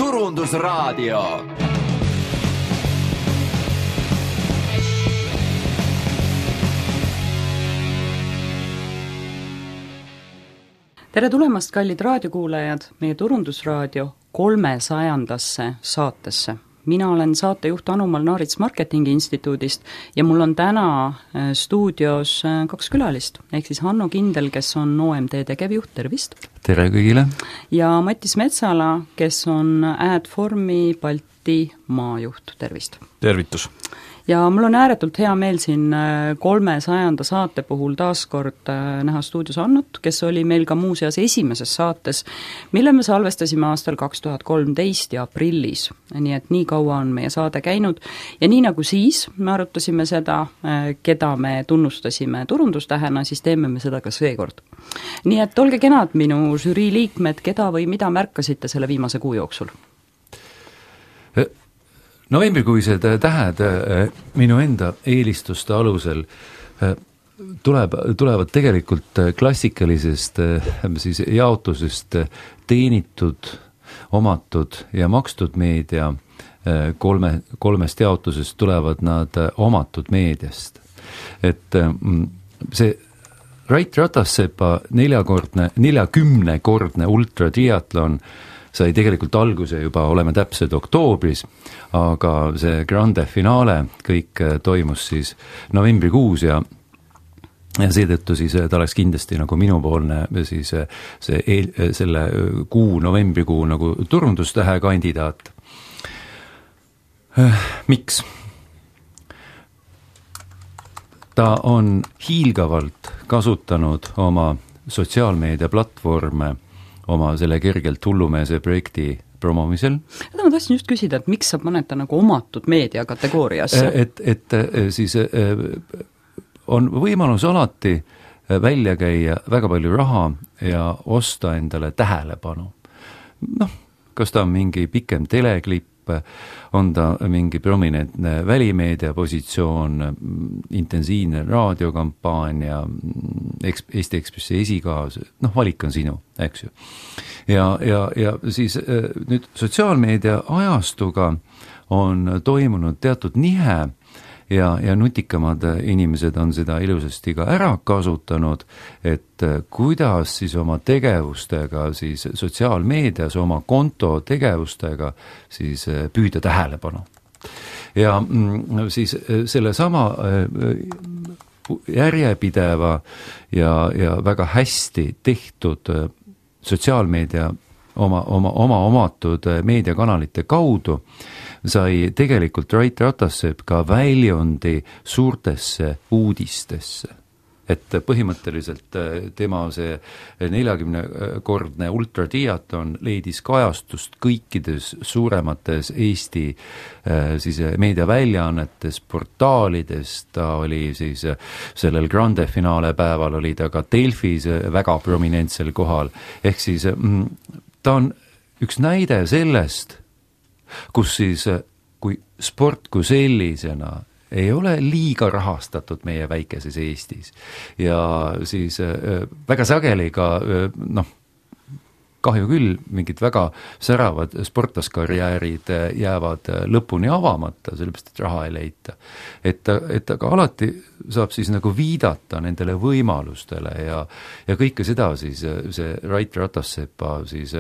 Turundusraadio. Tere tulemast, kallid raadiokuulajad, meie Turundusraadio 300. saatesse. Mina olen saatejuht Anumal Naarits Marketingi Instituudist ja mul on täna stuudios 2 külalist, ehk siis Hanno Kindel, kes on OMT tegevjuht, tervist! Tere kõigile! Ja Mattis Metsala, kes on Adformi Balti maajuht, tervist! Tervitus! Ja mul on ääretult hea meel siin 300. saate puhul taaskord näha stuudios Annut, kes oli meil ka muuseas esimeses saates, mille me salvestasime aastal 2013 ja aprillis. Nii et nii kaua on meie saade käinud ja nii nagu siis me arutasime seda, keda me tunnustasime turundustähena, siis teeme me seda ka seekord. Nii et olge kenad minu žürii liikmed, keda või mida märkasite selle viimase kuu jooksul? Novembrikuised tähed minu enda eelistuste alusel tulevad tegelikult klassikalisest siis jaotusest teenitud, omatud ja makstud meedia kolmest jaotusest tulevad nad omatud meediast. Et see Rait Ratassepa 40-kordne ultratriatlon sai tegelikult alguse juba, oleme täpsed oktoobris, aga see grande finaale kõik toimus siis novembrikuus ja seetõttu siis ta oleks kindlasti nagu minupoolne siis selle novembrikuu nagu turundustähe kandidaat. Miks? Ta on hiilgavalt kasutanud oma sotsiaalmeedia platvorme oma selle kergelt hullumeese projekti promomisel. Ma tahtsin just küsida, et miks sa paned ta nagu omatud meedia kategooriasse? Et siis on võimalus alati välja käia väga palju raha ja osta endale tähelepanu. Kas ta on mingi pikem teleklipp, on ta mingi prominentne välimeedia positsioon, intensiivne raadiokampaania, Eesti Ekspressi esikaas, valik on sinu, eks ju. Ja siis nüüd sotsiaalmeedia ajastuga on toimunud teatud nihe ja nutikamad inimesed on seda ilusasti ka ära kasutanud, et kuidas siis oma tegevustega siis sotsiaalmeedias, oma konto tegevustega siis püüda tähelepanu. Ja siis selle sama järjepideva ja väga hästi tehtud sotsiaalmeedia oma omatud meediakanalite kaudu sai tegelikult Rait Ratassepp ka väljundi suurtesse uudistesse. Et põhimõtteliselt tema see 40-kordne ultratriatlon leidis kajastust kõikides suuremates Eesti siis meediaväljaannetes, portaalides, ta oli siis sellel grande finaale päeval oli ta ka Delfis väga prominentsel kohal, ehk siis ta on üks näide sellest, kus siis, kui sport kui sellisena ei ole liiga rahastatud meie väikeses Eestis ja siis väga sageli ka, kahju küll, mingid väga säravad sportlaskarjäärid jäävad lõpuni avamata, sellepärast, et raha ei leita. Et aga alati saab siis nagu viidata nendele võimalustele ja kõike seda siis see Rait Ratassepa siis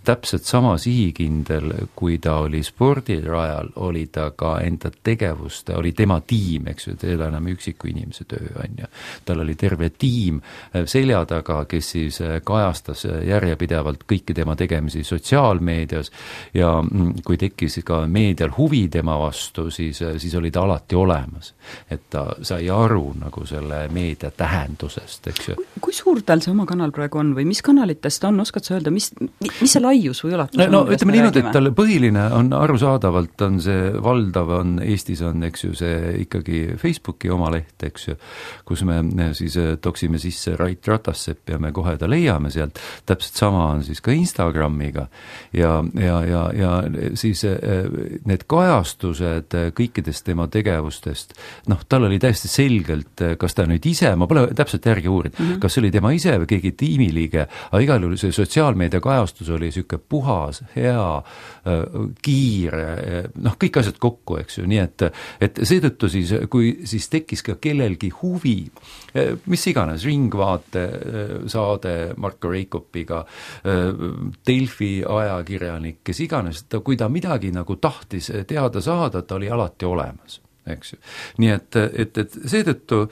täpselt sama sihikindel, kui ta oli spordirajal, oli ta ka enda tegevuste, oli tema tiim, eks ju, teil enam üksiku inimese töö on ja tal oli terve tiim selja taga, kes siis kajastas järjepidevalt kõiki tema tegemisi sotsiaalmeedias ja kui tekkis ka meedial huvi tema vastu, siis oli ta alati olemas, et ta sai aru nagu selle meedia tähendusest, eks ju. Kui suur tal see oma kanal praegu on või mis kanalitest on, oskad sa öelda, mis see laius või ulatus on? Ütleme niimoodi, et tal põhiline on arusaadavalt, on see valdav, on Eestis on, eks ju, see ikkagi Facebooki oma leht, eks ju, kus me siis toksime sisse Rait Ratassepp ja me kohe ta leiame sealt, täpselt sama on siis ka Instagramiga ja siis need kajastused kõikidest tema tegevustest, tal oli täiesti selgelt, kas ta nüüd ise, ma pole täpselt järgi uurinud, kas oli tema ise või keegi tiimiliige, aga igal juhul see sotsiaalmeedia kajastus oli niisugune puhas, hea, kiire, kõik asjad kokku, eks ju, nii et seetõttu siis, kui siis tekkis ka kellelgi huvi, mis iganes, Ringvaate saade Marko Reikopiga, Delfi ajakirjanik, kes iganes, kui ta midagi nagu tahtis teada saada, ta oli alati olemas. Eks ju. Nii et seetõttu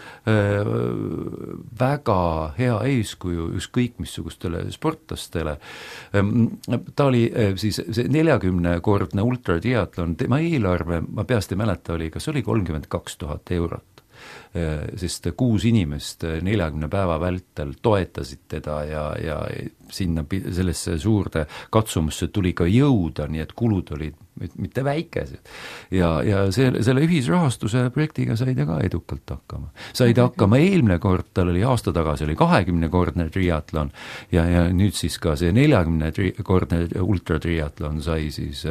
väga hea eeskuju ükskõik missugustele sportlastele. Ta oli siis see 40-kordne ultratriatlon, tema eelarve, ma peast ei mäleta, kas oli 32 000 eurot. Sest 6 inimest 40 päeva vältel toetasid teda ja sinna sellesse suurde katsumusse tuli ka jõuda, nii et kulud olid mitte väikesed. Ja selle ühisrahastuse projektiga said ka edukalt hakkama. Said hakkama eelmine kord, tal oli aasta tagasi oli 20-kordne triatlon ja nüüd siis ka see 40-kordne ultratriatlon sai siis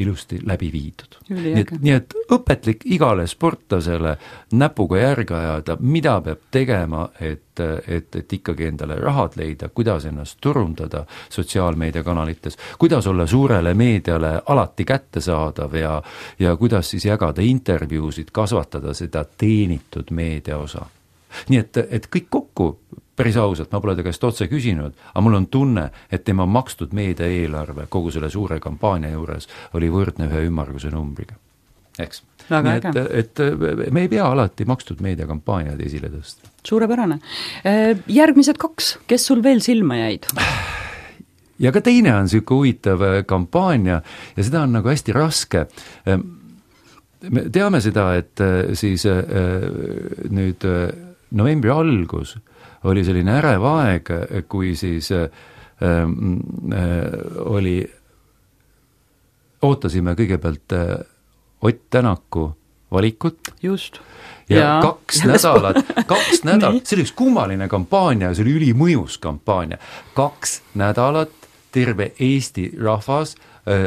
ilusti läbi viidud. Nii et õpetlik igale sportlasele näpuga järge ajada, mida peab tegema, et ikkagi endale rahad leida, kuidas ennast turundada sotsiaalmeediakanalites, kuidas olla suurele meediale alati kättesaadav ja kuidas siis jagada intervjuusid, kasvatada seda teenitud meedia osa. Nii et kõik kokku, päris ausalt, ma pole ta käest otse küsinud, aga mul on tunne, et tema makstud meedia eelarve kogu selle suure kampaania juures oli võrdne ühe ümmarguse numbriga. Eks? Nii et me ei pea alati makstud meediakampaaniad esile tõsta. Suurepärane. Järgmised 2, kes sul veel silma jäid? Ja ka teine on selline huvitav kampaania ja seda on nagu hästi raske. Me teame seda, et siis nüüd novembri algus oli selline ärev aeg, kui siis ootasime kõigepealt Ott Tänaku valikut. Just. Ja 2 nädalat, see oli üks kummaline kampaania, see oli ülimõjus kampaania. 2 nädalat terve Eesti rahvas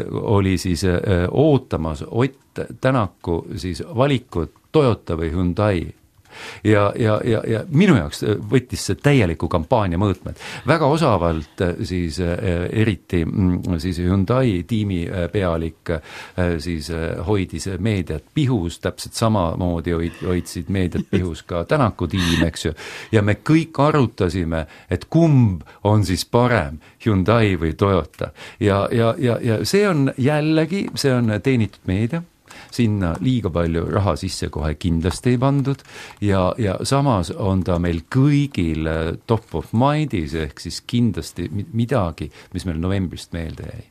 oli siis ootamas Ott Tänaku siis valikut Toyota või Hyundai. Ja minu jaoks võttis see täieliku kampaania mõõtmed. Väga osavalt siis eriti siis Hyundai tiimi pealik siis hoidis meediat pihus, täpselt samamoodi hoidsid meediat pihus ka Tänaku tiim, eks ju. Ja me kõik arutasime, et kumb on siis parem, Hyundai või Toyota. Ja see on jällegi, see on teenitud meedia. Sinna liiga palju raha sisse kohe kindlasti ei pandud ja samas on ta meil kõigil top of mindis ehk siis kindlasti midagi, mis meil novembrist meelde jäi.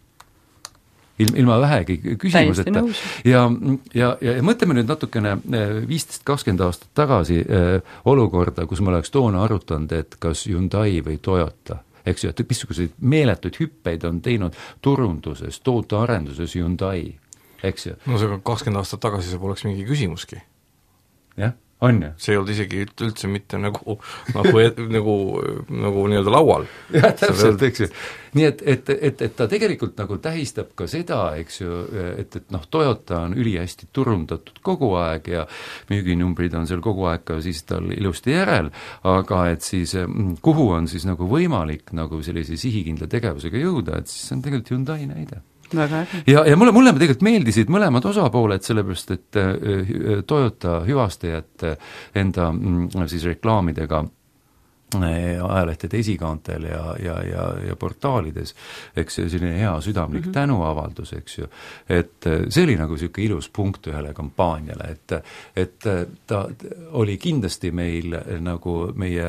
Ilma vähegi küsimuseta. Ja mõtleme nüüd natukene 15-20 aastat tagasi olukorda, kus me oleks toona arutanud, et kas Hyundai või Toyota. Eks ju, et missuguseid meeletuid hüppeid on teinud turunduses, tootearenduses Hyundai. Eks ju. No see 20 aastat tagasi see poleks mingi küsimuski. Jah, on ju. See ei olnud isegi üldse mitte nagu nii-öelda laual. Jah, täpselt, eks ju. Nii et ta tegelikult nagu tähistab ka seda, eks ju, et Toyota on ülihästi turundatud kogu aeg ja müüginumbrid on seal kogu aeg ka siis tal ilusti järel, aga et siis kuhu on siis nagu võimalik nagu sellise sihikindla tegevusega jõuda, et siis on tegelikult Hyundai näide. Ja mulle tegelikult meeldisid mõlemad osapooled, sellepärast, et Toyota hüvastajad enda siis reklaamidega ajalehtede esikaantel ja portaalides, eks selline hea südamlik tänuavaldus, eks ju, et see oli nagu selline ilus punkt ühele kampaaniale, et ta oli kindlasti meil nagu meie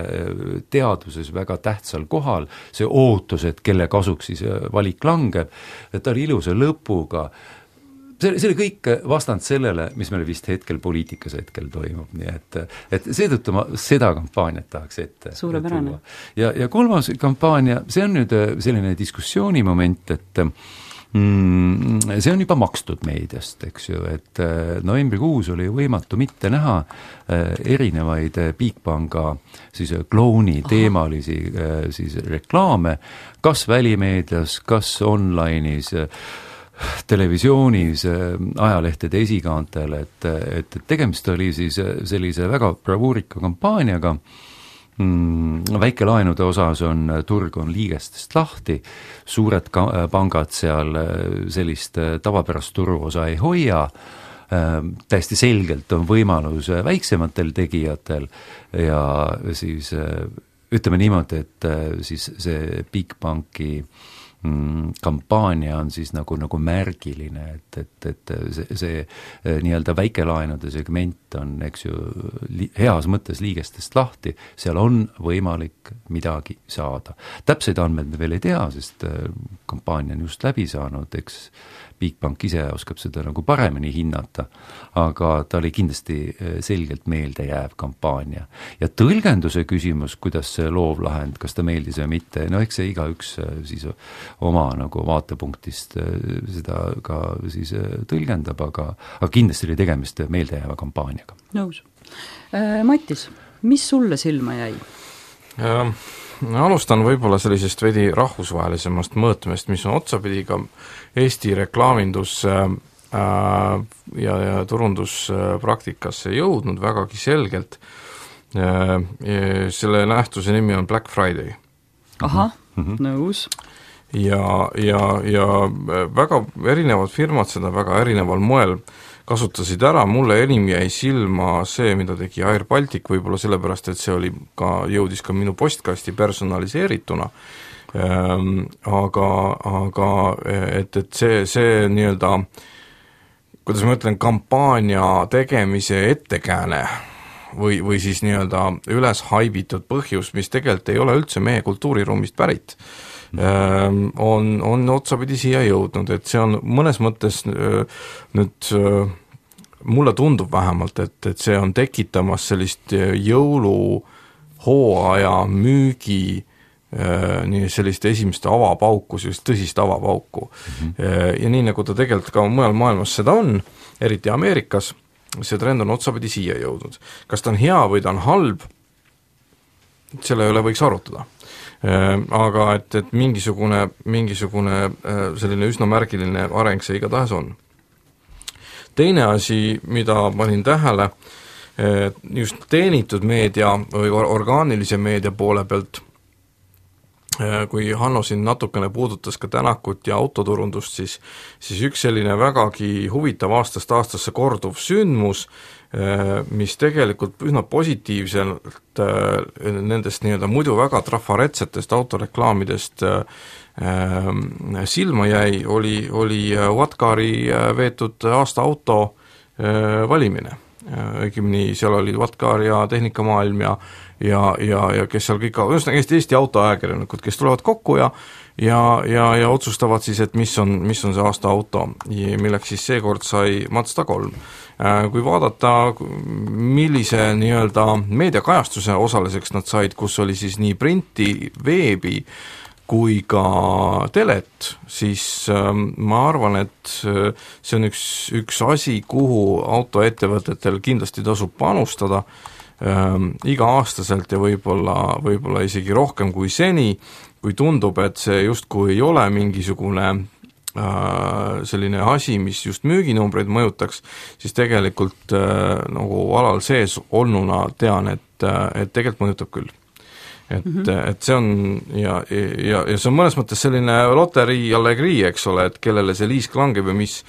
teaduses väga tähtsal kohal, see ootus, et kelle kasuks siis valik langeb, et ta oli ilusa lõpuga. See oli kõik vastand sellele, mis meil vist hetkel poliitikas hetkel toimub, nii et seetõttu ma seda kampaaniat tahaks ette. Suurepärane. Ja kolmas kampaania, see on nüüd selline diskussioonimoment, et see on juba makstud meediast, eks ju, et novembrikuus oli võimatu mitte näha erinevaid Bigpanga siis klooni teemalisi siis reklaame, kas välimeedias, kas online'is, televisioonis, ajalehtede esikaantel, et tegemist oli siis sellise väga bravuurika kampaaniaga väikelaenude osas turg on liigestest lahti, suured pangad seal sellist tavapärast turuosa ei hoia, täiesti selgelt on võimalus väiksematel tegijatel ja siis ütleme niimoodi, et siis see Bigbanki kampaania on siis nagu märgiline, et see nii-öelda väikelaenude segment on, eks ju, heas mõttes liigestest lahti, seal on võimalik midagi saada. Täpseid andmeid me veel ei tea, sest kampaania on just läbi saanud, eks Bigbank ise oskab seda nagu paremini hinnata, aga ta oli kindlasti selgelt meeldejääv kampaania. Ja tõlgenduse küsimus, kuidas see loovlahend, kas ta meeldis või mitte, no eks see igaüks siis oma nagu vaatepunktist seda ka siis tõlgendab, aga kindlasti oli tegemist meeldejääva kampaaniaga. Nõus. Mattis, mis sulle silma jäi? Alustan võib-olla sellisest veidi rahvusvahelisemast mõõtmest, mis on otsapidi ka Eesti reklaamindus ja turunduspraktikasse jõudnud vägagi selgelt. Selle nähtuse nimi on Black Friday. Ahah, nõus. Ja väga erinevad firmad seda väga erineval moel kasutasid ära, mulle enim jäi silma see, mida tegi Air Baltic, võib-olla sellepärast, et see jõudis ka minu postkasti personaliseerituna, aga et see nii-öelda, kuidas ma ütlen, kampaania tegemise ettekääne või siis nii-öelda üles haibitud põhjus, mis tegelikult ei ole üldse meie kultuuriruumist pärit, on otsapidi siia jõudnud, et see on mõnes mõttes nüüd mulle tundub vähemalt, et see on tekitamas sellist jõuluhooaja müügi sellist esimest avapauku, sellist tõsist avapauku. Ja nii nagu ta tegelikult ka mujal maailmas seda on, eriti Ameerikas, see trend on otsapidi siia jõudnud. Kas ta on hea või ta on halb, selle üle võiks arutada. Aga et mingisugune selline üsna märgiline areng see igatahes on. Teine asi, mida panin tähele, just teenitud meedia või orgaanilise meedia poole pealt, kui Hanno siin natukene puudutas ka Tänakut ja autoturundust, siis üks selline vägagi huvitav aastast aastasse korduv sündmus, mis tegelikult üsna positiivselt nendest nii-öelda muidu väga trafaretsetest autoreklaamidest silma jäi, oli Wattcari veetud aasta auto valimine. Õigemini seal oli Wattcar ja Tehnikamaailm ja kes seal kõik, Eesti autoajakirjanikud, kes tulevad kokku ja otsustavad siis, et mis on see aasta auto, milleks siis seekord sai Mazda 3. Kui vaadata, millise nii-öelda meediakajastuse osaliseks nad said, kus oli siis nii printi, veebi kui ka telet, siis ma arvan, et see on üks asi, kuhu autoettevõtetel kindlasti tasub panustada iga-aastaselt ja võib-olla isegi rohkem kui seni, kui tundub, et see justkui ei ole mingisugune selline asi, mis just müüginumbreid mõjutaks, siis tegelikult nagu alal sees olnuna tean, et tegelikult mõjutab küll. Et see on ja see on mõnes mõttes selline loterii allegrii, eks ole, et kellele see liisk langeb ja mis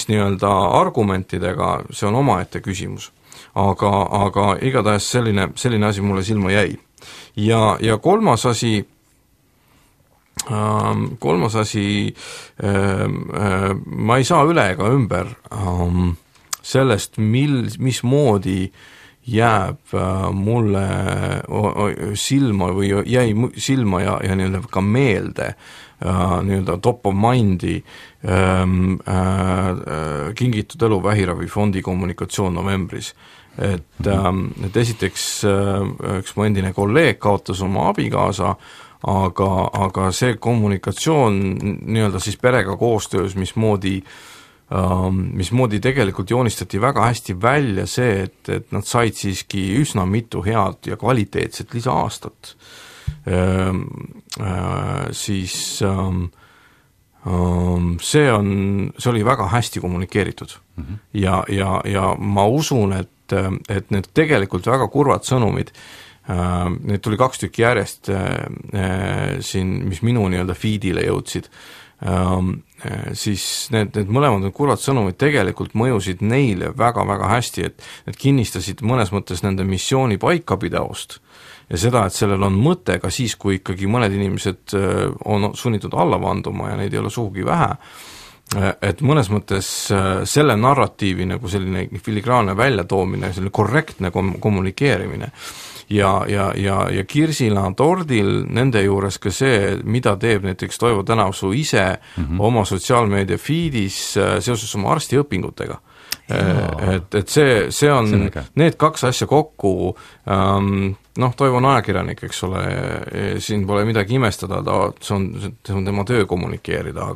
nii-öelda argumentidega, see on omaette küsimus. Aga igatahes selline asi mulle silma jäi. Ja kolmas asi, ma ei saa üle ega ümber sellest, mismoodi jääb mulle silma või jäi silma ja nii-öelda ka meelde nii-öelda top of mindi Kingitud elu vähiravifondi kommunikatsioon novembris. Et esiteks üks mu endine kolleeg kaotas oma abikaasa, aga see kommunikatsioon nii-öelda siis perega koostöös, mismoodi tegelikult joonistati väga hästi välja see, et nad said siiski üsna mitu head ja kvaliteetset lisaaastat. Siis see oli väga hästi kommunikeeritud. Ja ma usun, et need tegelikult väga kurvad sõnumid Neid tuli 2 tükki järjest siin, mis minu nii-öelda feedile jõudsid, siis need mõlemad kurvad sõnumid tegelikult mõjusid neile väga-väga hästi, et kinnistasid mõnes mõttes nende missiooni paikapidavust ja seda, et sellel on mõte ka siis, kui ikkagi mõned inimesed on sunnitud alla vanduma ja neid ei ole sugugi vähe, et mõnes mõttes selle narratiivi nagu selline filigraanne väljatoomine, selline korrektne kommunikeerimine ja kirsina tordil nende juures ka see, mida teeb näiteks Toivo Tänavsuu ise oma sotsiaalmeedia feedis seoses oma arstiõpingutega. Et see on need 2 asja kokku, Toivo on ajakirjanik, eks ole, siin pole midagi imestada, see on tema töö kommunikeerida,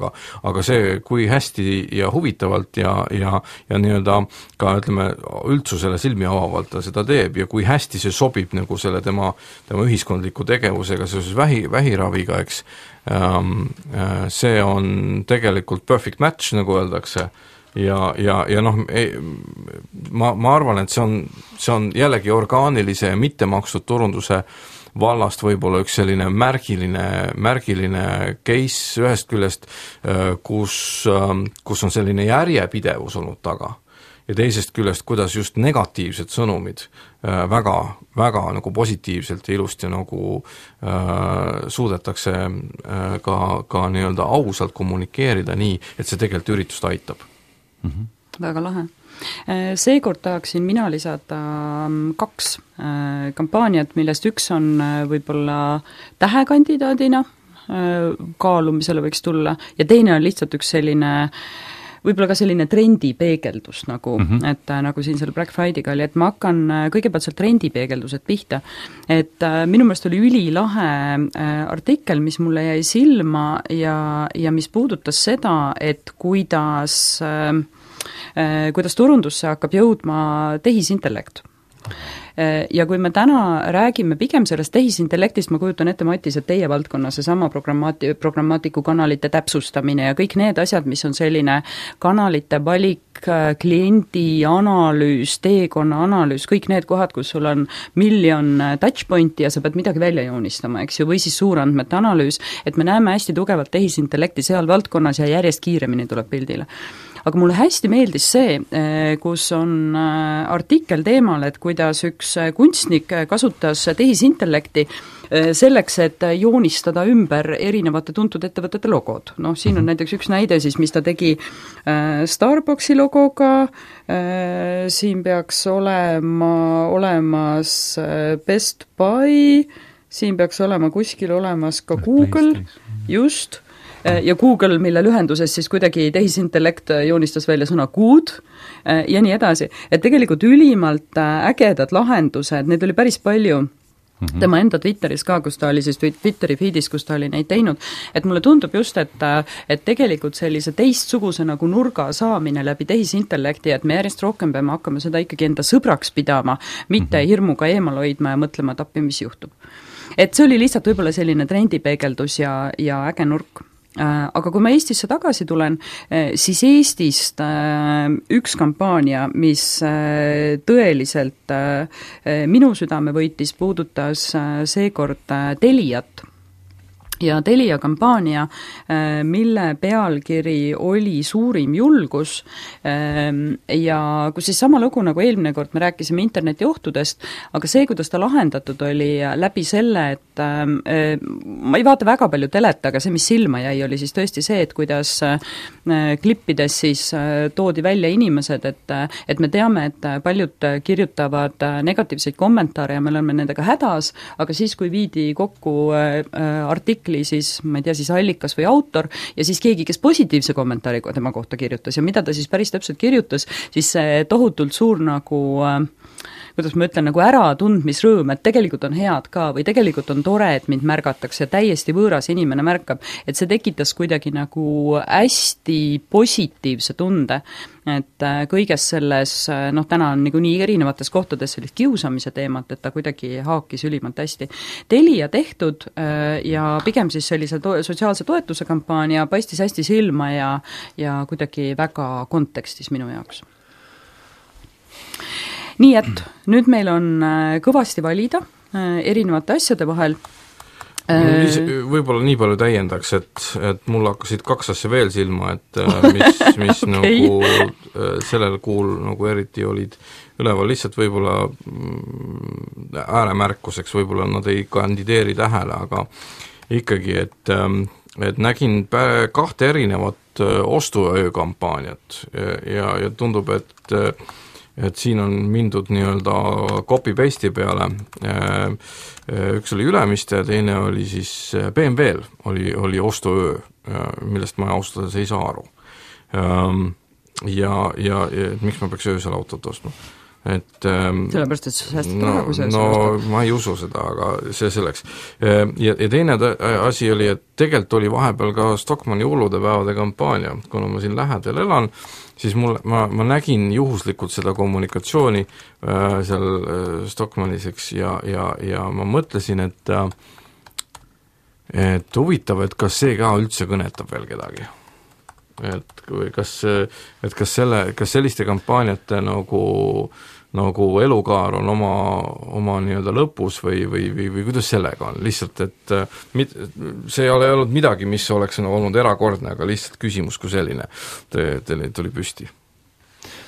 aga see, kui hästi ja huvitavalt ja nii-öelda ka, ütleme, üldsusele silmi avavalt ta seda teeb ja kui hästi see sobib nagu selle tema ühiskondliku tegevusega seoses vähiraviga, eks, see on tegelikult perfect match, nagu öeldakse, ja noh, ma arvan, et see on jällegi orgaanilise ja mittemakstud turunduse vallast võib-olla üks selline märgiline case ühest küljest, kus on selline järjepidevus olnud taga ja teisest küljest, kuidas just negatiivsed sõnumid väga, väga nagu positiivselt ja ilusti nagu suudetakse ka nii-öelda ausalt kommunikeerida nii, et see tegelikult üritust aitab. Väga lahe. Seekord tahaksin mina lisada 2 kampaaniat, millest üks on võib-olla tähekandidaadina kaalumisele võiks tulla ja teine on lihtsalt üks selline võib-olla ka selline trendipeegeldus nagu, et nagu siin selle Black Friday'ga oli, et ma hakkan kõigepealt seal trendipeegeldused pihta, et minu meelest oli ülilahe artikkel, mis mulle jäi silma ja mis puudutas seda, et kuidas turundusse hakkab jõudma tehisintellekt. Ja kui me täna räägime pigem sellest tehisintellektist, ma kujutan ette, Matis, et teie valdkonnas seesama programmaatiku kanalite täpsustamine ja kõik need asjad, mis on selline kanalite valik, kliendi analüüs, teekonna analüüs, kõik need kohad, kus sul on miljon touchpointi ja sa pead midagi välja joonistama, eks ju, või siis suurandmete analüüs, et me näeme hästi tugevalt tehisintellekti seal valdkonnas ja järjest kiiremini tuleb pildile. Aga mulle hästi meeldis see, kus on artikkel teemal, et kuidas üks kunstnik kasutas tehisintellekti selleks, et joonistada ümber erinevate tuntud ettevõtete logod. Noh, siin on näiteks üks näide siis, mis ta tegi Starbucksi logoga, siin peaks olemas Best Buy, siin peaks olema kuskil olemas ka Google, just, ja Google, mille lühenduses siis kuidagi tehisintellekt joonistas välja sõna good ja nii edasi. Et tegelikult ülimalt ägedad lahendused, need oli päris palju tema enda Twitteris ka, kus ta oli siis Twitteri feedis, kus ta oli neid teinud, et mulle tundub just, et tegelikult sellise teistsuguse nagu nurga saamine läbi tehisintellekti, et me järjest rohkem peame hakkama seda ikkagi enda sõbraks pidama, mitte hirmuga eemal hoidma ja mõtlema, et appi, mis juhtub. Et see oli lihtsalt võib-olla selline trendipeegeldus ja äge nurk. Aga kui ma Eestisse tagasi tulen, siis Eestist üks kampaania, mis tõeliselt minu südame võitis, puudutas seekord Teliat. Ja Telia kampaania, mille pealkiri oli Suurim julgus ja kus siis sama lugu nagu eelmine kord me rääkisime interneti ohtudest, aga see, kuidas ta lahendatud oli läbi selle, et ma ei vaata väga palju telet, aga see, mis silma jäi, oli siis tõesti see, et kuidas klippides siis toodi välja inimesed, et me teame, et paljud kirjutavad negatiivseid kommentaare ja me oleme nendega hädas, aga siis, kui viidi kokku artikli, siis, ma ei tea, siis allikas või autor ja siis keegi, kes positiivse kommentaari tema kohta kirjutas ja mida ta siis päris täpselt kirjutas, siis see tohutult suur nagu kuidas ma ütlen, nagu äratundmisrõõm, et tegelikult on head ka või tegelikult on tore, et mind märgatakse, täiesti võõras inimene märkab, et see tekitas kuidagi nagu hästi positiivse tunde, et kõiges selles, noh täna on nii erinevates kohtades sellist kiusamise teemat, et ta kuidagi haakis ülimalt hästi. Telia tehtud ja pigem siis sellise sotsiaalse toetuse kampaania paistis hästi silma ja kuidagi väga kontekstis minu jaoks. Nii et nüüd meil on kõvasti valida, erinevate asjade vahel. Võib-olla nii palju täiendaks, et mul hakkasid 2 asja veel silma, et mis okay. Nagu sellel kuul nagu eriti olid üleval, lihtsalt võib-olla ääremärkuseks, võib-olla nad ei kandideeri tähele, aga ikkagi, et nägin 2 erinevat ostuöökampaaniat ja tundub, et siin on mindud nii-öelda copy-paste'i peale, üks oli Ülemiste ja teine oli siis BMW-l oli ostuöö, millest ma austada ei saa aru. Ja miks ma peaks öösel autot ostma? Sellepärast, et sa säästad raha, kui sa ostad. Ma ei usu seda, aga see selleks. Ja teine asi oli, et tegelikult oli vahepeal ka Stockmanni hulludepäevade kampaania, kuna ma siin lähedal elan, siis ma nägin juhuslikult seda kommunikatsiooni seal Stockmanniseks ja ma mõtlesin, et huvitav, et kas see ka üldse kõnetab veel kedagi. Kas selliste kampaaniate nagu elukaar on oma nii-öelda lõpus või kuidas sellega on? Lihtsalt, et see ei ole olnud midagi, mis oleks olnud erakordne, aga lihtsalt küsimus kui selline tuli püsti.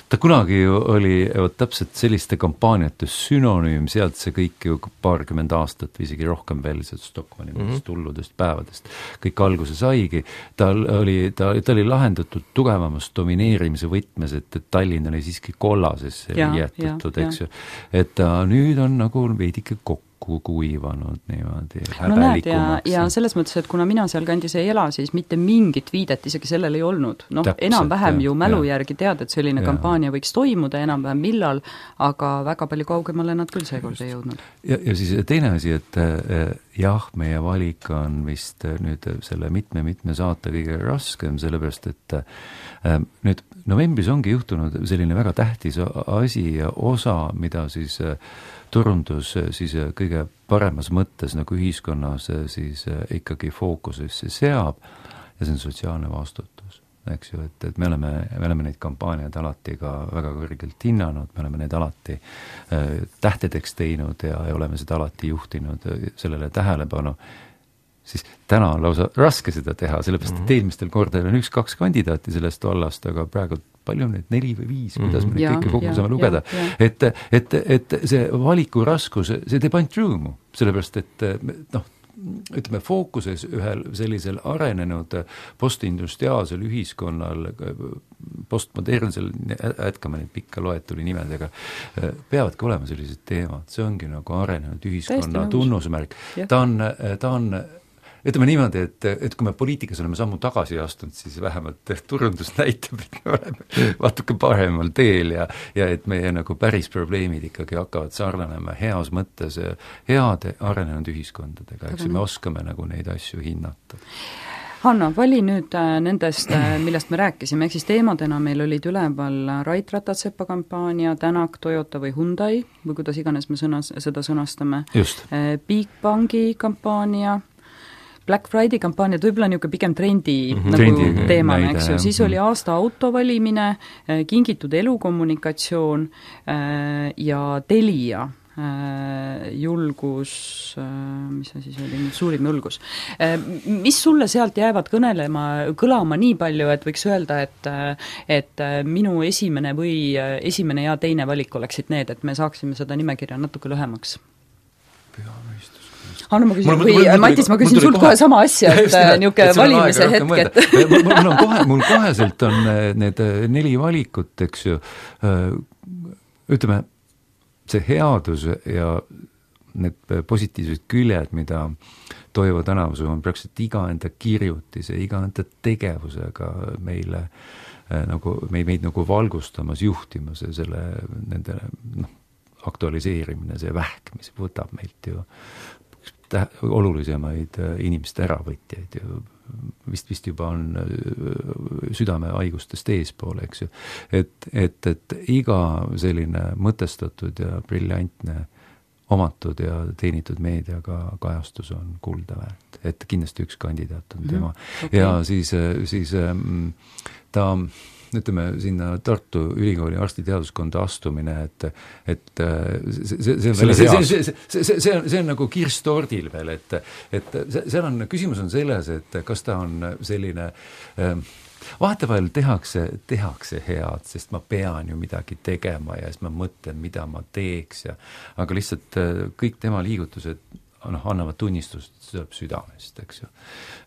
Ta kunagi oli täpselt selliste kampaaniate synonüüm, sealt see kõik ju 20 aastat või isegi rohkem veel Stockmanni hulludest päevadest kõik alguse saigi. Ta oli lahendatud tugevamast domineerimise võtmes, et Tallinn oli siiski kollasesse jäetud, eks ju. Et ta nüüd on nagu veidike kokku kuivanud niimoodi häbelikumaks. Ja selles mõttes, et kuna mina seal kandis ei ela, siis mitte mingit viidet isegi sellel ei olnud. Enam-vähem ju mälu järgi tead, et selline kampaania võiks toimuda enam-vähem millal, aga väga palju kaugemale nad küll seekord ei jõudnud. Ja siis teine asi, et jah, meie valik on vist nüüd selle mitme saate kõige raskem, sellepärast, et nüüd novembris ongi juhtunud selline väga tähtis asi ja osa, mida siis turundus siis kõige paremas mõttes nagu ühiskonnas siis ikkagi fookusesse seab ja see on sotsiaalne vastutus, eks ju, et me oleme neid kampaaniaid alati ka väga kõrgelt hinnanud, me oleme neid alati tähtedeks teinud ja oleme seda alati juhtinud sellele tähelepanu, siis täna on lausa raske seda teha, sellepärast, et eelmistel kordadel on 1-2 kandidaati sellest vallast, aga praegu palju neid 4 või 5, kuidas me neid kõike kokku saame lugeda. Et see valiku raskus, see teeb ainult rõõmu, sellepärast, et ütleme, fookuses ühel sellisel arenenud postindustriaalsel ühiskonnal, postmodernsel, jätkame neid pikka loetuli nimedega, peavadki olema sellised teemad, see ongi nagu arenenud ühiskonna tunnusmärk. Ta on ütleme niimoodi, et kui me poliitikas oleme sammu tagasi astunud, siis vähemalt turundus näitab, et me oleme vatuke paremal teel ja et meie nagu päris probleemid ikkagi hakkavad sarnanema heas mõttes heade arenenud ühiskondadega, eks me oskame nagu neid asju hinnata. Hanno, vali nüüd nendest, millest me rääkisime, ehk siis teemadena meil olid üleval Rait Ratatsepa kampaania, Tänak, Toyota või Hyundai, või kuidas iganes me seda sõnastame. Bigbanki kampaania, Black Friday kampaania, võib-olla niisugune pigem trendi teemana, eks ju, siis oli aasta auto valimine, kingitud elukommunikatsioon ja Telia julgus, mis see siis oli, suurim julgus. Mis sulle sealt jäävad kõlama nii palju, et võiks öelda, et minu esimene ja teine valik oleksid need, et me saaksime seda nimekirja natuke lühemaks? Hanno, ma küsin, Matis, ma küsin sult kohe sama asja, et niisugune valimise hetk, mul koheselt on need 4 valikut, eks ju, ütleme, see headus ja need positiivsed küljed, mida Toivo Tänavusuu on praktiliselt iga enda kirjutise, iga enda tegevusega meile nagu, meid nagu valgustamas, juhtimas ja selle nende aktualiseerimine, see vähk, mis võtab meilt ju olulisemaid inimeste äravõtjaid ju vist juba on südamehaigustest eespool, eks ju. Et iga selline mõtestatud ja briljantne omatud ja teenitud meediaga kajastus on kulda väärt. Et kindlasti üks kandidaat on tema. Ja siis ta ütleme sinna Tartu Ülikooli arstiteaduskonda astumine, et see on nagu kirss tordil veel, et seal on, küsimus on selles, et kas ta on selline vahetevahel tehakse head, sest ma pean ju midagi tegema ja siis ma mõtlen, mida ma teeks aga lihtsalt kõik tema liigutused annavad tunnistust, see tuleb südamest, eks ju.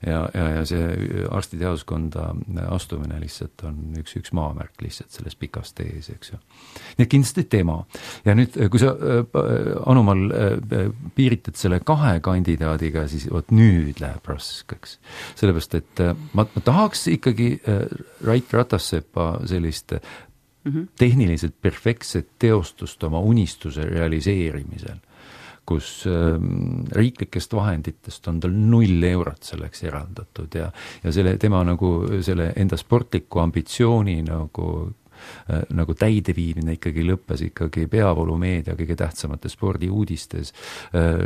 Ja see arstiteaduskonda astumine lihtsalt on üks maamärk lihtsalt selles pikas tees, eks ju. Nii et kindlasti tema. Ja nüüd, kui sa, Anumal, piiritad selle 2 kandidaadiga, siis nüüd läheb raskeks. Sellepärast, et ma tahaks ikkagi Rait Ratassepa sellist tehniliselt perfektset teostust oma unistuse realiseerimisel, kus riiklikest vahenditest on tal 0 eurot selleks eraldatud ja tema nagu selle enda sportliku ambitsiooni nagu täideviimine ikkagi lõppes ikkagi peavoolumeedia kõige tähtsamate spordiuudistes,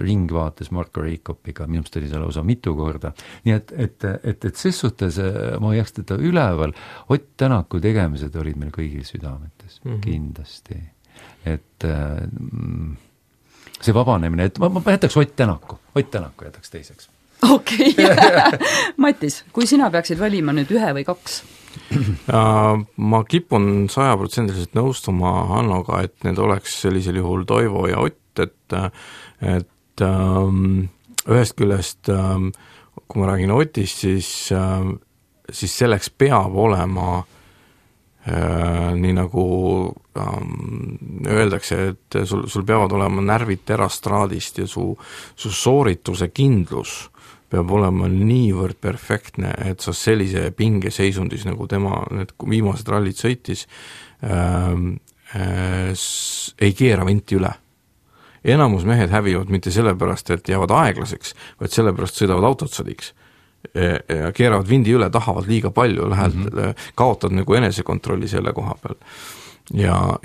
ringvaates Marko Reikopiga, minust oli seal lausa mitu korda. Nii et ses suhtes ma jääks teda üleval, Ott Tänaku tegemised olid meil kõigil südametes, kindlasti. Et see vabanemine, et ma jätaks Ott Tänaku jätaks teiseks. Okei. Matis, kui sina peaksid valima nüüd 1 või 2? Ma kipun 100% nõustuma Hannoga, et need oleks sellisel juhul Toivo ja Ott, et ühest küljest, kui ma räägin Otist, siis selleks peab olema nii nagu öeldakse, et sul peavad olema närvid terastraadist ja su soorituse kindlus peab olema niivõrd perfektne, et sa sellise pingeseisundis, nagu tema need viimased rallid sõitis, ei keera vinti üle. Enamus mehed hävivad mitte sellepärast, et jäävad aeglaseks, vaid sellepärast sõidavad autotsadiks. Ja keeravad vindi üle, tahavad liiga palju, kaotad nagu enesekontrolli selle koha peal. Ja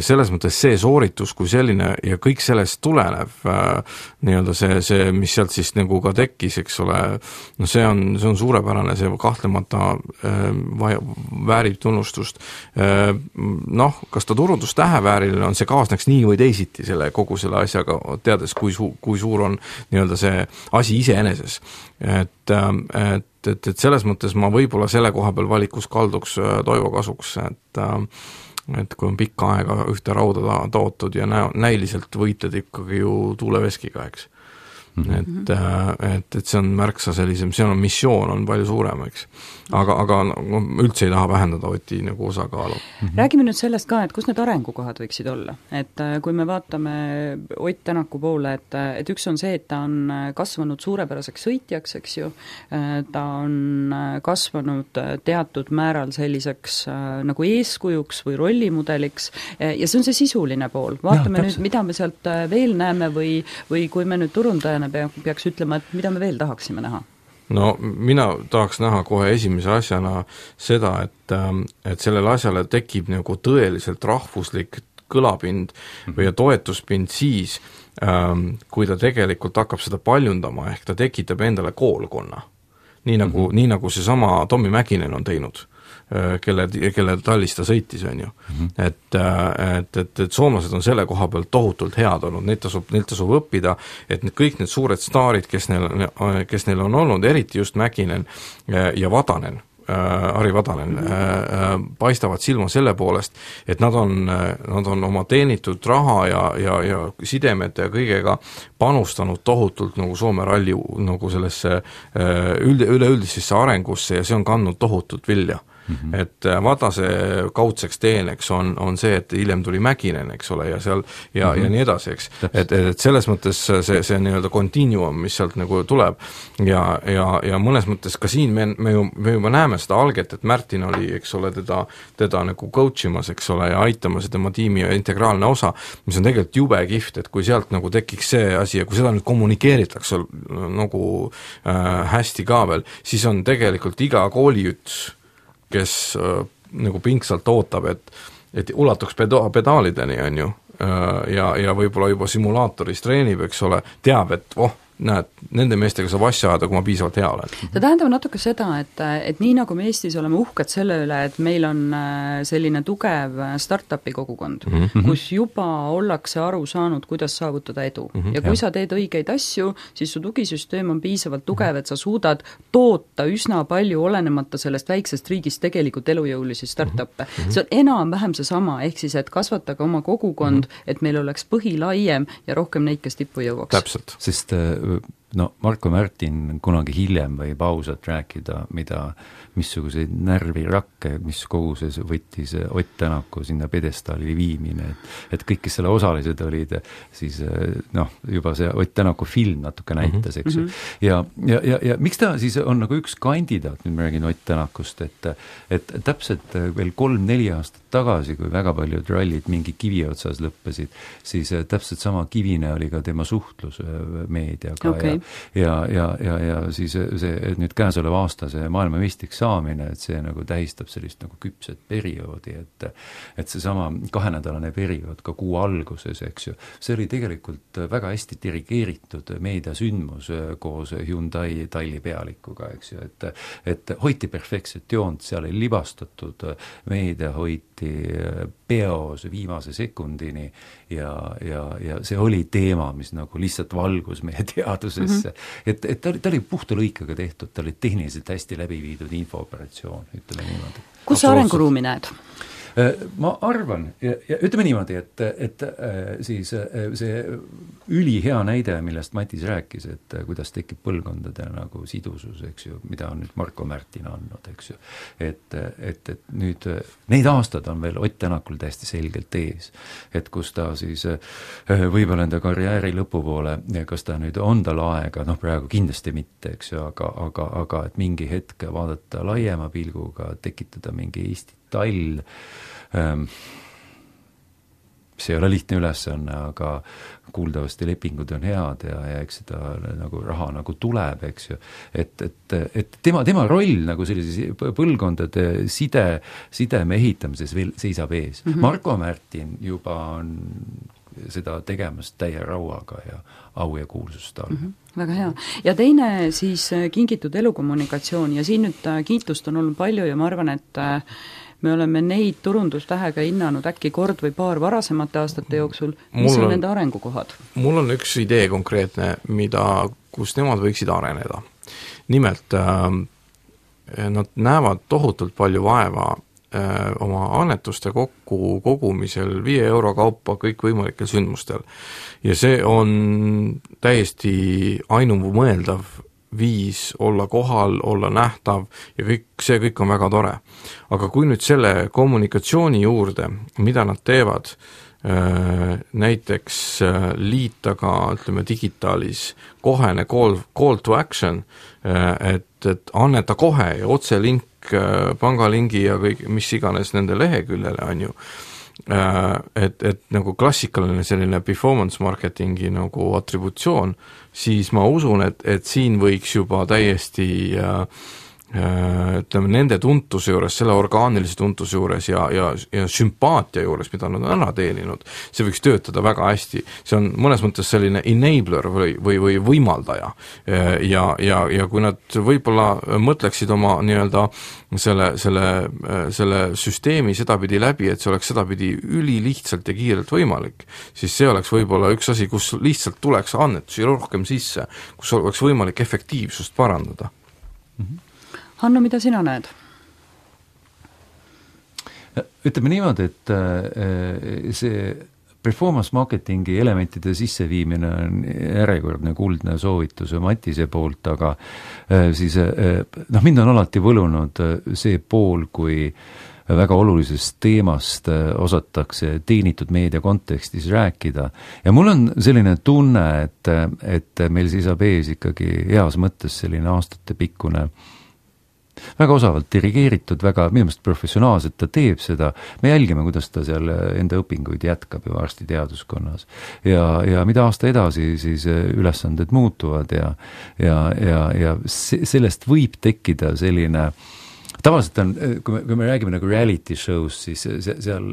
selles mõttes see sooritus kui selline ja kõik sellest tulenev nii-öelda see, mis sealt siis nagu ka tekkis, eks ole, no see on suurepärane, see kahtlemata väärib tunnustust. Kas ta turundustähevääriline on, see kaasneks nii või teisiti kogu selle asjaga, teades, kui suur on nii-öelda see asi iseeneses. Et selles mõttes ma võib-olla selle koha peal valikus kalduks Toivo kasuks, et kui on pikka aega ühte rauda tootud ja näiliselt võitled ikkagi ju tuuleveskiga, eks. Et see on märksa sellisem, see on missioon on palju suurem, eks. Aga üldse ei taha vähendada Oti nagu osakaalu. Räägime nüüd sellest ka, et kus need arengukohad võiksid olla. Et kui me vaatame Ott Tänaku poole, et üks on see, et ta on kasvanud suurepäraseks sõitjaks, eks ju, ta on kasvanud teatud määral selliseks nagu eeskujuks või rollimudeliks ja see on see sisuline pool. Vaatame nüüd, mida me sealt veel näeme või kui me nüüd turundajana peaks ütlema, et mida me veel tahaksime näha? No mina tahaks näha kohe esimese asjana seda, et sellele asjale tekib nagu tõeliselt rahvuslik kõlapind või toetuspind siis, kui ta tegelikult hakkab seda paljundama, ehk ta tekitab endale koolkonna. Nii nagu see sama Tommi Mäkinen on teinud, kelle tallis ta sõitis, on ju. Et soomlased on selle koha pealt tohutult head olnud, neilt tasub õppida, et kõik need suured staarid, kes neil on olnud, eriti just Mäkinen ja Vadanen, Ari Vadanen, paistavad silma selle poolest, et nad on oma teenitud raha ja sidemete ja kõigega panustanud tohutult nagu Soome ralli nagu sellesse üleüldisesse arengusse ja see on kandnud tohutult vilja. Et Vatase kaudseks teeneks on see, et hiljem tuli Mäkinen, eks ole, ja seal ja nii edasi, eks. Et selles mõttes see nii-öelda continuum, mis sealt nagu tuleb ja mõnes mõttes ka siin me juba näeme seda alget, et Märtin oli, eks ole, teda nagu coachimas, eks ole, ja aitamas tema tiimi integraalne osa, mis on tegelikult jube kihvt, et kui sealt nagu tekiks see asi ja kui seda nüüd kommunikeeritakse nagu hästi ka veel, siis on tegelikult iga kooliüts, kes nagu pingsalt ootab, et ulatuks pedaalideni, on ju, ja võib-olla juba simulaatoris treenib, eks ole, teab, et näed, nende meestega saab asja ajada, kui ma piisavalt hea olen. See tähendab natuke seda, et nii nagu me Eestis oleme uhked selle üle, et meil on selline tugev startupi kogukond, kus juba ollakse aru saanud, kuidas saavutada edu. Ja kui sa teed õigeid asju, siis su tugisüsteem on piisavalt tugev, et sa suudad toota üsna palju olenemata sellest väiksest riigist tegelikult elujõulisi startup'e. See on enam-vähem seesama, ehk siis, et kasvatage oma kogukond, et meil oleks põhi laiem ja rohkem neid, kes tippu jõuaks. Täpselt. Sest Marko Märtin kunagi hiljem võib ausalt rääkida, missuguseid närvirakke, mis koguses võttis Ott Tänaku sinna pedestaali viimine, et kõik, kes selle osalised olid, siis juba see Ott Tänaku film natuke näitas, eks ju. Ja miks ta siis on nagu üks kandidaat, nüüd ma räägin Ott Tänakust, et täpselt veel 3-4 aastat tagasi, kui väga paljud rallid mingi kivi otsas lõppesid, siis täpselt sama kivine oli ka tema suhtlus meediaga ja siis see nüüd käesoleva aasta see maailmameistriks saamine, et see nagu tähistab sellist nagu küpset perioodi, et seesama 2-nädalane periood ka kuu alguses, eks ju, see oli tegelikult väga hästi dirigeeritud meediasündmus koos Hyundai Talli pealikuga, eks ju, et hoiti perfektset joont, seal ei libastatud, meedia hoiti peos viimase sekundini ja see oli teema, mis nagu lihtsalt valgus meie teadusesse. Et ta oli puhta lõikaga tehtud, ta oli tehniliselt hästi läbi viidud infooperatsioon, ütleme niimoodi. Kus sa arenguruumi näed? Ma arvan, ja ütleme niimoodi, et siis see ülihea näide, millest Matis rääkis, et kuidas tekib põlvkondade nagu sidusus, eks ju, mida on nüüd Marko Märtin andnud, eks ju. Et nüüd neid aastad on veel Ott Tänakul täiesti selgelt ees, et kus ta siis võib-olla enda karjääri lõpupoole, kas ta nüüd on tal aega, praegu kindlasti mitte, eks ju, aga et mingi hetk vaadata laiema pilguga, tekitada mingi Eesti tall, see ei ole lihtne ülesanne, aga kuuldavasti lepingud on head ja eks seda nagu raha nagu tuleb, eks ju, et tema roll nagu sellises põlvkondade sideme ehitamises veel seisab ees. Marko Märtin juba on seda tegemas täie rauaga ja au ja kuulsust all. Väga hea. Ja teine siis kingitud elukommunikatsioon ja siin nüüd kiitust on olnud palju ja ma arvan, et me oleme neid turundustähega hinnanud äkki kord või paar varasemate aastate jooksul. Mis on nende arengukohad? Mul on üks idee konkreetne, kus nemad võiksid areneda. Nimelt, nad näevad tohutult palju vaeva oma annetuste kogumisel 5 euro kaupa kõikvõimalikel sündmustel. Ja see on täiesti ainumõeldav viis olla kohal, olla nähtav ja see kõik on väga tore. Aga kui nüüd selle kommunikatsiooni juurde, mida nad teevad, näiteks liita ka, ütleme, digitaalis kohene call to action, et anneta kohe ja otselink, pangalingi ja kõik, mis iganes nende leheküljele on ju, et nagu klassikaline selline performance marketingi nagu atributsioon, siis ma usun, et siin võiks juba täiesti ütleme, nende tuntuse juures, selle orgaanilise tuntuse juures ja sümpaatia juures, mida nad on ära teeninud, see võiks töötada väga hästi. See on mõnes mõttes selline enabler või võimaldaja. Ja kui nad võib-olla mõtleksid oma nii-öelda selle süsteemi sedapidi läbi, et see oleks sedapidi ülilihtsalt ja kiirelt võimalik, siis see oleks võib-olla üks asi, kus lihtsalt tuleks annetusi rohkem sisse, kus oleks võimalik efektiivsust parandada. Hanno, mida sina näed? Ütleme niimoodi, et see performance marketingi elementide sisseviimine on järjekordne kuldne soovitus Matise poolt, aga siis mind on alati võlunud see pool, kui väga olulisest teemast osatakse teenitud meedia kontekstis rääkida. Ja mul on selline tunne, et meil seisab ees ikkagi heas mõttes selline aastatepikkune väga osavalt dirigeeritud, väga minu meelest professionaalselt ta teeb seda, me jälgime, kuidas ta seal enda õpinguid jätkab ju arstiteaduskonnas. Ja mida aasta edasi, siis ülesanded muutuvad ja sellest võib tekkida selline, tavaliselt on, kui me räägime nagu reality show's, siis seal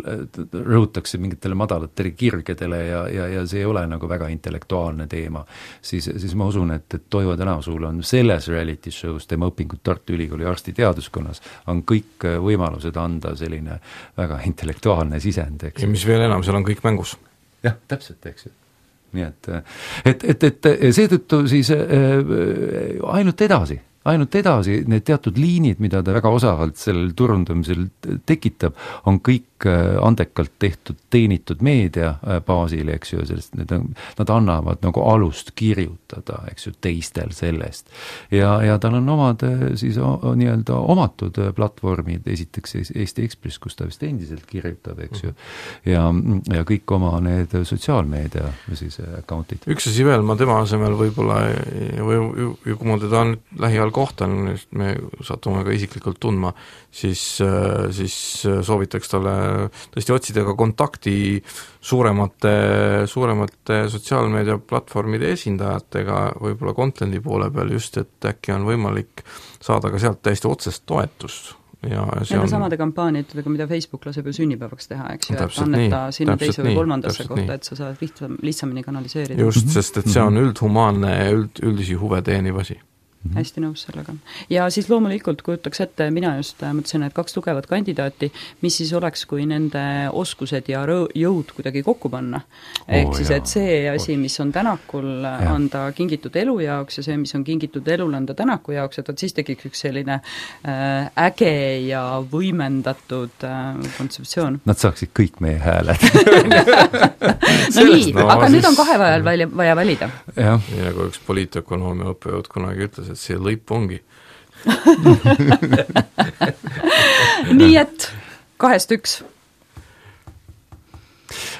rõhutakse mingitele madalatele kirgedele ja see ei ole nagu väga intellektuaalne teema, siis ma usun, et Toivo Tänavsuul on selles reality show's, tema õpingud Tartu Ülikooli arstiteaduskonnas, on kõik võimalused anda selline väga intellektuaalne sisend, eks. Ja mis veel enam, seal on kõik mängus. Jah, täpselt, eks ju. Nii et seetõttu siis ainult edasi, need teatud liinid, mida ta väga osavalt sellel turundamisel tekitab, on kõik andekalt tehtud, teenitud meedia baasil, eks ju, sest nad annavad nagu alust kirjutada, eks ju, teistel sellest. Ja tal on omad siis nii-öelda omatud platvormid, esiteks Eesti Ekspress, kus ta vist endiselt kirjutab, eks ju, ja kõik oma need sotsiaalmeedia siis accountid. Üks asi veel, ma tema asemel võib-olla, või kui ma teda lähiajal kohtan, me satume ka isiklikult tundma, siis soovitaks talle tõesti otsida ka kontakti suuremate sotsiaalmeedia platvormide esindajatega, võib-olla content'i poole peal just, et äkki on võimalik saada ka sealt täiesti otsest toetust. Nende samade kampaaniatega, mida Facebook laseb ju sünnipäevaks teha, eks ju, et anneta sinna teise või kolmandasse kohta, et sa saad lihtsamini kanaliseerida. Just, sest et see on üldhumaanne ja üldisi huve teeniv asi. Hästi nõus sellega. Ja siis loomulikult kujutaks ette, mina just mõtlesin, et 2 tugevat kandidaati, mis siis oleks, kui nende oskused ja jõud kuidagi kokku panna. Ehk siis, et see asi, mis on Tänakul anda kingitud elu jaoks ja see, mis on kingitud elul anda Tänaku jaoks, et siis tekiks üks selline äge ja võimendatud kontseptsioon. Nad saaksid kõik meie hääled. No nii, aga nüüd on 2 vajal vaja valida. Ja kui üks poliitökonoomia õppejõud kunagi ütles, et see lõip ongi. Nii et 2-1.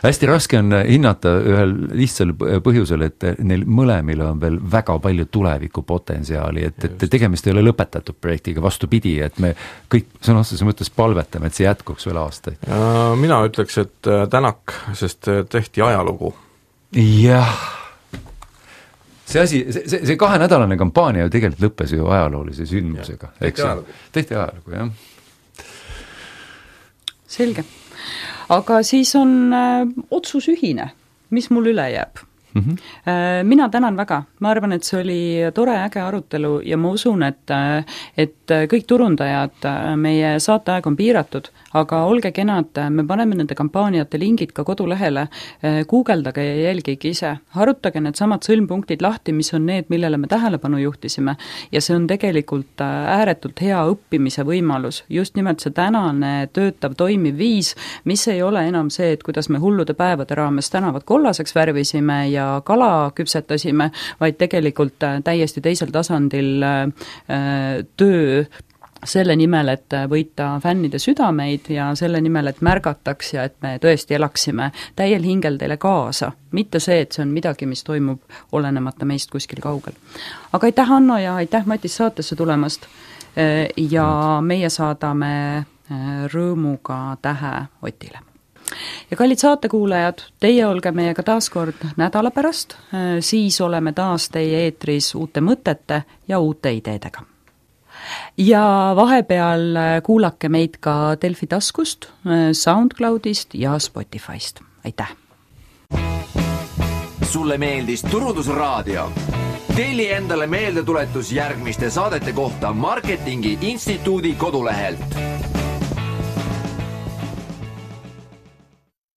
Hästi raske on hinnata ühel lihtsal põhjusel, et neil mõlemil on veel väga palju tulevikupotentsiaali, et tegemist ei ole lõpetatud projektiga, vastupidi, et me kõik sõna otseses mõttes palvetame, et see jätkuks veel aastaid. Mina ütleks, et Tänak, sest tehti ajalugu. Jah. See 2-nädalane kampaania ju tegelikult lõppes ju ajaloolise sündmusega. Tehti ajalugu, jah. Selge. Aga siis on otsus ühine, mis mul üle jääb. Mina tänan väga, ma arvan, et see oli tore äge arutelu ja ma usun, et kõik turundajad, meie saateaeg on piiratud, aga olge kenad, me paneme nende kampaaniate lingid ka kodulehele, guugeldage ja jälgige ise, harutage need samad sõlmpunktid lahti, mis on need, millele me tähelepanu juhtisime ja see on tegelikult ääretult hea õppimise võimalus, just nimelt see tänane töötav toimiv viis, mis ei ole enam see, et kuidas me hullude päevade raames tänavad kollaseks värvisime ja kala küpsetasime, vaid tegelikult täiesti teisel tasandil töö selle nimel, et võita fännide südameid ja selle nimel, et märgataks ja et me tõesti elaksime täiel hingel teile kaasa. Mitte see, et see on midagi, mis toimub olenemata meist kuskil kaugel. Aga aitäh, Hanno, ja aitäh, Matis, saatesse tulemast ja meie saadame rõõmuga tähe Otile. Ja kallid saatekuulajad, teie olge meiega taas kord nädala pärast, siis oleme taas teie eetris uute mõtete ja uute ideedega. Ja vahepeal kuulake meid ka Delfi taskust, SoundCloudist ja Spotifyst. Aitäh! Sulle meeldis Turundusraadio? Telli endale meeldetuletus järgmiste saadete kohta Marketingi Instituudi kodulehelt.